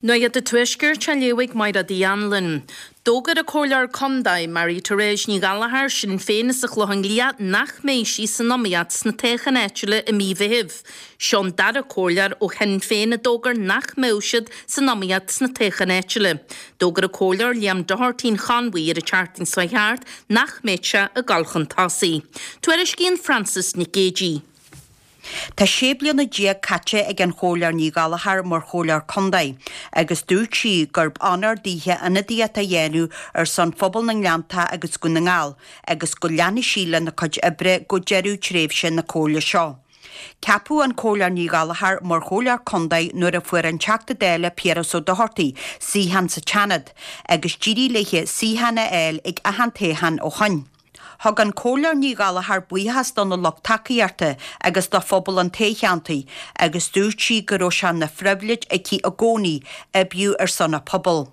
Nuacht an Tuaiscirt á léamh ag Mairéad Uí Anluain. D'fhógair an Comhairleoir Condae, Mary Therese Ní Ghallchóir, Sinn Féin as an Chlochán Liath nach mbeidh sí san iomaíocht sna toghcháin áitiúla i mí Mheithimh. Seo an dara comhairleoir ó Shinn Féin a d'fhógair nach mbeadh siad san iomaíocht sna toghcháin áitiúla. D'fhógair an Comhairleoir Liam Doherty an Chonmhaigh ar an tseachtain seo thart nach mbeadh sé ag dul chun tosaigh. Tuairiscíonn Frances Nic Géadaigh. Tá 16 bliana caite ag an Chomhairleoir Ní Ghallchóir mar Chomhairleoir Contae agus dúirt sí gurb onóir daoithe ionadaíocht a dhéanamh ar son phobal na nGleanntach agus Dhún na nGall agus go leanfaidh sí lena cuid oibre go deireadh tréimhse na Comhairle seo. Ceapadh an Comhairleoir Ní Ghallchóir mar Chomhairleoir Contae nuair a fuair an Teachta Dála Piaras Ó Dochartaigh suíochán sa tSeanad agus d'éirigh léithe suíochán a fháil ag achan toghchán ó shoin. Thug an Comhairleoir Ní Ghallchóir buíochas dona lucht tacaíochta agus do phobal an toghcheantair agus dúirt sí go raibh sé ina phribhléid aici i gcónaí oibriú ar son a pobail.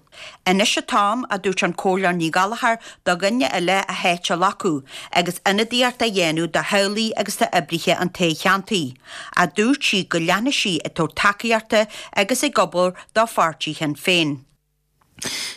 Anois an t-am, a dúirt an Comhairleoir Ní Ghallchóir, do dhuine eile a háit a ghlacadh agus ionadaíocht a dhéanamh do theaghlaigh agus d'oibrithe an toghcheantair. Ach dúirt sí go leanfaidh sí ag tabhairt tacaíochta agus ag obair do pháirtí Shinn Féin.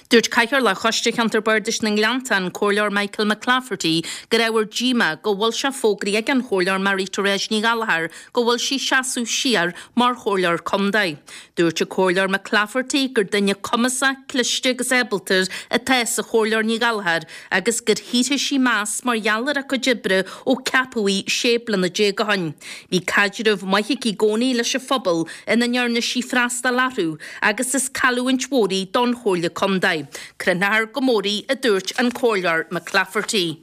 Dúirt Cathaoirleach Choiste Cheantar Bardais na nGleanntach, an Comhairleoir Michael McClafferty, gur ábhar díomá go bhfuil sé fógraithe ag an Chomhairleoir Mary Therese Ní Ghallchóir go bhfuil sí seasamh siar mar Chomhairleoir Contae. Dúirt an Comhairleoir McClafferty gur duine cumasach, cliste agus ábalta atá sa Chomhairleoir Ní Ghallchóir agus gur shaothraigh sí meas mar gheall ar a cuid oibre ó ceapadh í 16 bliana ó shin. Bhí caidreamh maith aici i gcónaí leis an phobal ina ndearna sí freastal orthu agus is cailliúint mhór í don Chomhairle Contae. Crothneofar go mór í, a dúirt an Comhairleoir McClafferty.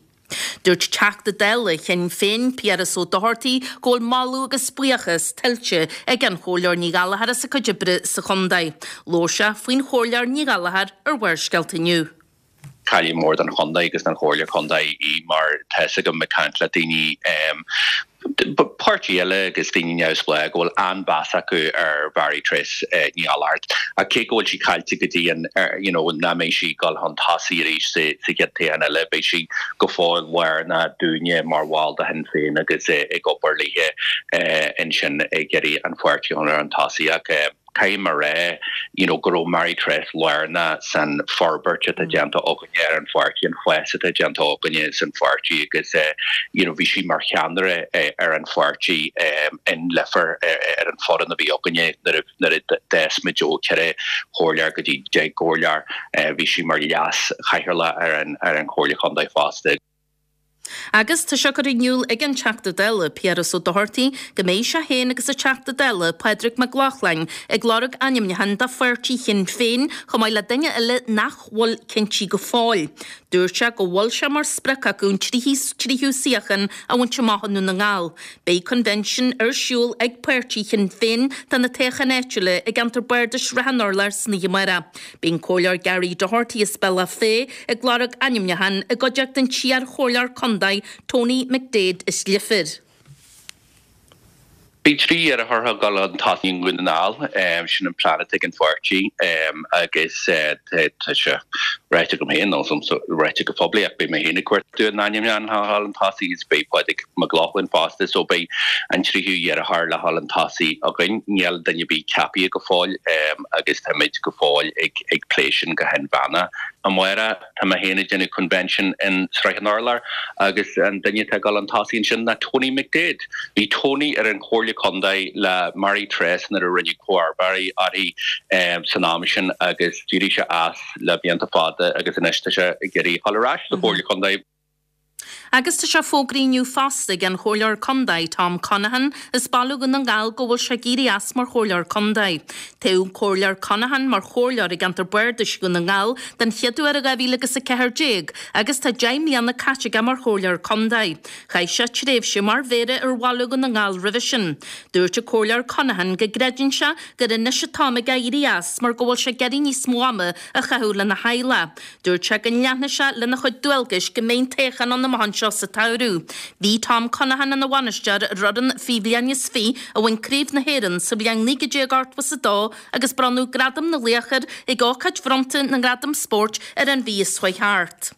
Dúirt Teachta Dála Shinn Féin, Piaras Ó Dochartaigh, go bhfuil moladh agus buíochas tuillte ag an Chomhairleoir Ní Ghallchóir as a cuid oibre sa chontae. Labhair sé faoin Chomhairleoir Ní Ghallchóir ar Bharrscéalta inniu. Cailleadh mór don chontae agus don chomhairle contae í mar tá fhios agam ag caint le daoine páirtí eile agus daoine neamhspleách go bhfuil an-mheas acu ar Mhary Therese Ní Ghallchóir. Ach cé go bhfuil sí caillte go dtí an you know nach mbeidh sí ag dul chun tosaigh arís sa chéad toghchán eile beidh sí go fóill lárnach dúinne mar bhall de Shinn Féin agus ag obair léithe ansin ag iarraidh an pháirtí a chur chun tosaigh ach Caithfidh mé a rá you know go raibh Mary Therese lárnach san forbairt atá déanta againne ar an pháirtí, an fás atá déanta againne san pháirtí agus you know bhí sí mar cheannaire ar an pháirtí in Leifear ar an foireann a bhí againne nuair a nuair a d'fhás muid ó 4 chomhairleoir go dtí 10 gcomhairleoir. Bhí sí mar leas chathaoirleach ar an ar an Chomhairle Chontae fosta. Agus tá sé curtha in iúl ag an Teachta Dála, Piaras Ó Dochartaigh, go mbeidh sé féin agus an Teachta Dála, Pádraig Mac Lochlainn, ag lorg ainmniúchán do pháirtí Shinn Féin, chomh maith le duine eile nach bhfuil cinntí go fóill. Dúirt sé go bhfuil sé mar sprioc acu an tríú suíochán a bhaint amach i nDún na nGall. Beidh convention ar siúl ag páirtí Shinn Féin do na toghcháin áitiúla i gceantar Bardais Shrath an Urláir san oíche amárach. Beidh an Comhairleoir Gary Doherty as Bealach Féich ag lorg ainmniúchán i gcuideachta an t-iar-chomhairleoir contae Tony McDaid as Leifear. Beidh 3 iarrthóir ag dul chun tosaigh i nDún na nGall, sin an plean atá ag an pháirtí agus tá sé ráite agam féin, nó ráite go poiblí ach beidh mé féin ag cuartú an ainmniúchán le dhul chun tosaigh agus beidh Pádraig Mac Lochlainn fosta so beidh an tríú iarrthóir le dhul chun tosaigh againn. Níl duine ar bith ceaptha go fóill. agus táimid go fóill ag plé sin go hinmheánach. Amárach, tá mé féin ag déanamh convention in Sraith an Urláir agus an duine atá ag dul chun tosaigh ansin ná Tony McDaid. Bhí Tony ar an Chomhairle Contae le Mary Therese nuair a rinneadh comharba uirthi san am sin agus d'éirigh sé as le blianta fada agus anois tá sé ag iarraidh a dhul ar ais sa Chomhairle Contae. Agus tá sé fógraithe inniu fosta ag an Chomhairleoir Contae, Tom Conaghan, as Baile Dhún na nGall go bhfuil sé ag éirí as mar Chomhairleoir Contae. Toghadh an Comhairleoir Conaghan mar Chomhairleoir i gceantar Bardais Dhún na nGall den chéad uair i 2014 agus tá 10 mbliana caite aige mar Chomhairleoir Contae. Chaith sé tréimhse mar Mhéara ar Bhaile Dhún na nGall roimhe sin. Dúirt an Comhairleoir Conaghan go gcreideann sé gur anois an t-am aige éirí as mar go bhfuil sé ag iarraidh níos mó ama a chaitheamh lena theaghlach. Dúirt sé go leanfaidh sé lena chuid dualgais go mbeidh an toghchán ann amach anseo sa tsamhradh. Bhí Tom Conaghan ina bhainisteoir ar fhoireann faoi bhliain is fi a bhain Craobh na hÉireann sa bhliain 1982 agus bronnadh Gradam na Laoch air ag ócáid bhronnta na nGradam Spóirt ar an mhí seo chuaigh thart.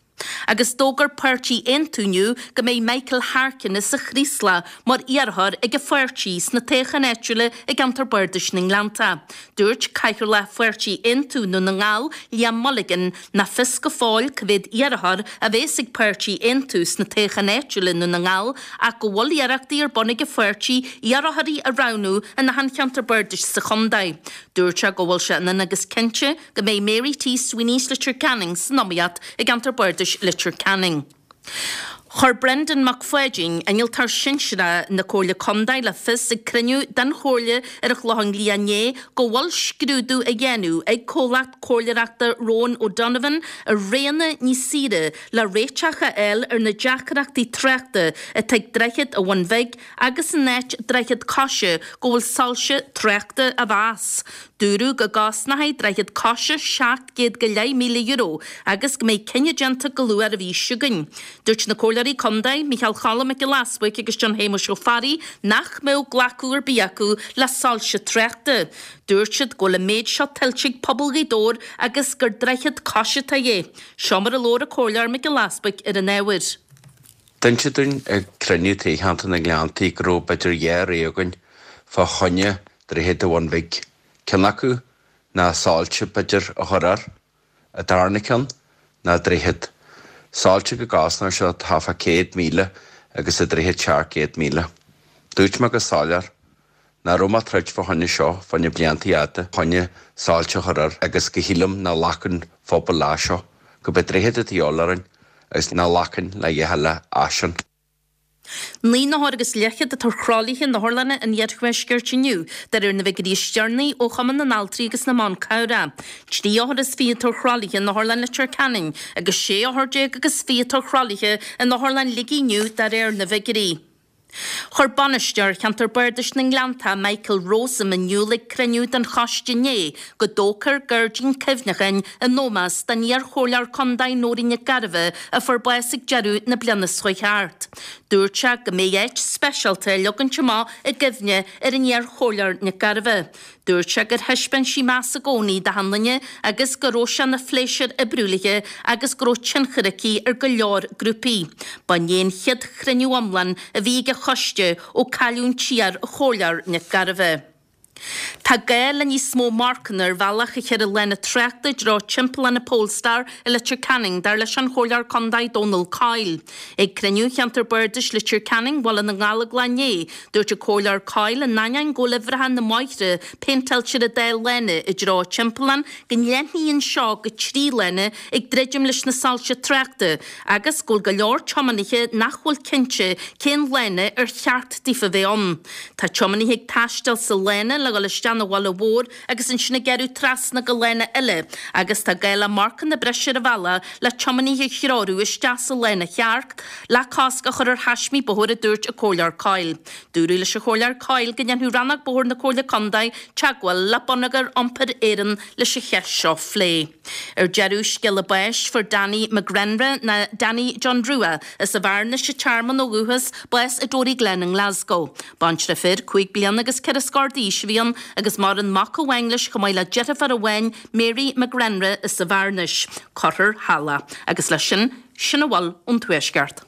Agus d'fhógair Páirtí Aontú inniu go mbeidh Michael Harkin as an Chraoslach mar iarrthóir ag an pháirtí sna toghcháin áitiúla i gceantar Bardais na nGleanntach. Dúirt Cathaoirleach Pháirtí Aontú i nDún na nGall, Liam Mulligan, nach fios go fóill cá mhéad iarrthóir a bheas ag Páirtí Aontú sna toghcháin áitiúla i nDún na nGall ach go bhfuil iarrachtaí ar bun ag an pháirtí iarrthóirí a roghnú in achan cheantar bardais sa chontae. Dúirt sé go bhfuil sé ionann agus cinnte go mbeidh Mary T Sweeney as Leitir Ceanainn san iomaíocht i gceantar bardais Leitir Ceanainn. Chuir Brendan Mac Pháidín, Innealtóir Sinsearach na Comhairle Contae le fios ag cruinniú den Chomhairle ar an Chlochán Liath inné go bhfuil scrúdú á dhéanamh ag comhlacht comhairleoireachta Rowan O'Donovan ar roghanna níos saoire le réiteach a fháil ar na deacrachtaí tráchta atá ag Droichead an Bhun Bhig agus in áit Droichead Coise go bhfuil soilse tráchta á mheas. Dúradh go gcosnóidh Droichead Coise €700,000 go leith agus go mbeidh cinneadh déanta go luath ar an mhí seo chugainn. Dúirt na Comhairleoirí Contae, Micheál Choilm Mac Giolla Easbuic agus John Shéamuis Ó Fearraigh nach mbeadh glacadh ar bith acu le soilse tráchta. Dúirt siad go bhfuil an méid seo tuillte ag pobal Ghaoth Dobhair agus gur droichead coise atá de dhíth. Seo mar a labhair an Comhairleoir Mac Giolla Easbuic ar an ábhar. D'inseadh dúinn ag cruinniú toghcheantar na nGleanntaí go raibh b'fhéidir dhá rogha againn fá choinne Droichead an Bhun Bhig. Ceann acu ná soilse b'fhéidir a chur air. An darna ceann ná droichead. Soilse go gcosnódh sé thart fá 100,000 agus an droichead 700,000. Dúirt mé go soiléir nach raibh mé ag troid fá choinne seo fá choinne blianta fhada choinne soilse a chur air agus go shílim nach nglacann phobal leis seo, go b'é droichead atá de dhíobháil orainn agus nach nglacann le dhath eile as sin. 9 n-othar agus leathchéad atá ar thralaithe in otharlanna an iarthuaiscirt inniu, de réir na bhfigiúirí is deireanaí ó Chumann na nAltraí agus na mBan Cabhrach. 3 othar is 20 atá ar thralaithe in Otharlann Leitir Ceanainn agus 16 othar agus 20 atá ar thralaithe in Otharlann Shligigh inniu, de réir na bhfigiúirí. Chuir Bainisteoir Cheantar Bardais na nGleanntach, Michael Rowsome in iúl ag cruinniú den choiste inné go dtógfar gairdín cuimhneacháin in ómós don iar-chomhairleoir contae Nóirín Nic Gairbheith a fuair bás ag deireadh na bliana seo chuaigh thart. Dúirt sé go mbeidh áit speisialta á leagaint amach i gcuimhne ar an iar-chomhairleoir Nic Gairbheith. Dúirt sé gur thaispeáin sí meas i gcónaí d'achan duine agus go raibh sé ina phléisiúr oibriú léi agus go raibh tionchar aici ar go leor grúpaí. Ba inné an chéad chruinniú iomlán a bhí ag an choiste ó cailleadh an t-iar-chomhairleoir Nic Gairbheith. Tá gá le níos mó marcanna ar bhealach a cheithre lána tráchta i dtreo Timpeallán an Polestar i Leitir Ceanainn, dar leis an Chomhairleoir Contae Dónal Coyle. Ag cruinniú Cheantar Bardais Leitir Ceanainn, Bhaile na nGallóglach inné, Dúirt an Comhairleoir Coyle in ainneoin go bhfuil uimhreacha na mbóithre péinteáilte ar an dá lána i dtreo an timpealláin go leathnaíonn seo go 3 lána ag druidim leis na soilse tráchta agus go bhfuil go leor tiománaithe nach bhfuil cinnte cén lána ar cheart daofa bheith ann. Tá tiománaithe ag taisteal sa lána le dhul isteach 'na bhaile mhór agus ansin ag gearradh trasna go lána eile agus tá gá le marcanna breise ar an bhealach le tiománaithe a threorú isteach sa lána cheart le cosc a chur ar thaismí bóthair a dúirt an Comhairleoir Coyle. Dúradh leis an Chomhairleoir Coyle go ndéanfadh Rannóg Bóthair na Comhairle Contae teagmháil le Bonneagar Iompair Éireann leis an cheist seo phlé. Ar deireadh, scéala báis, fuair Danny McGrenra ná Danny John Rua as an Bhearnais, an Tearmann ó dhúchas, bás i Dory Glen i nGlasgow. Baintreach fir, 5 bliana agus 4 scór d'aois a bhí ann agus maireann mac amháin leis chomh maith le deirfiúr amháin, Mary McGrenra as an Bhearnais. Cuirfear thall é. Agus leis sin, sin a bhfuil ón Tuaisceart.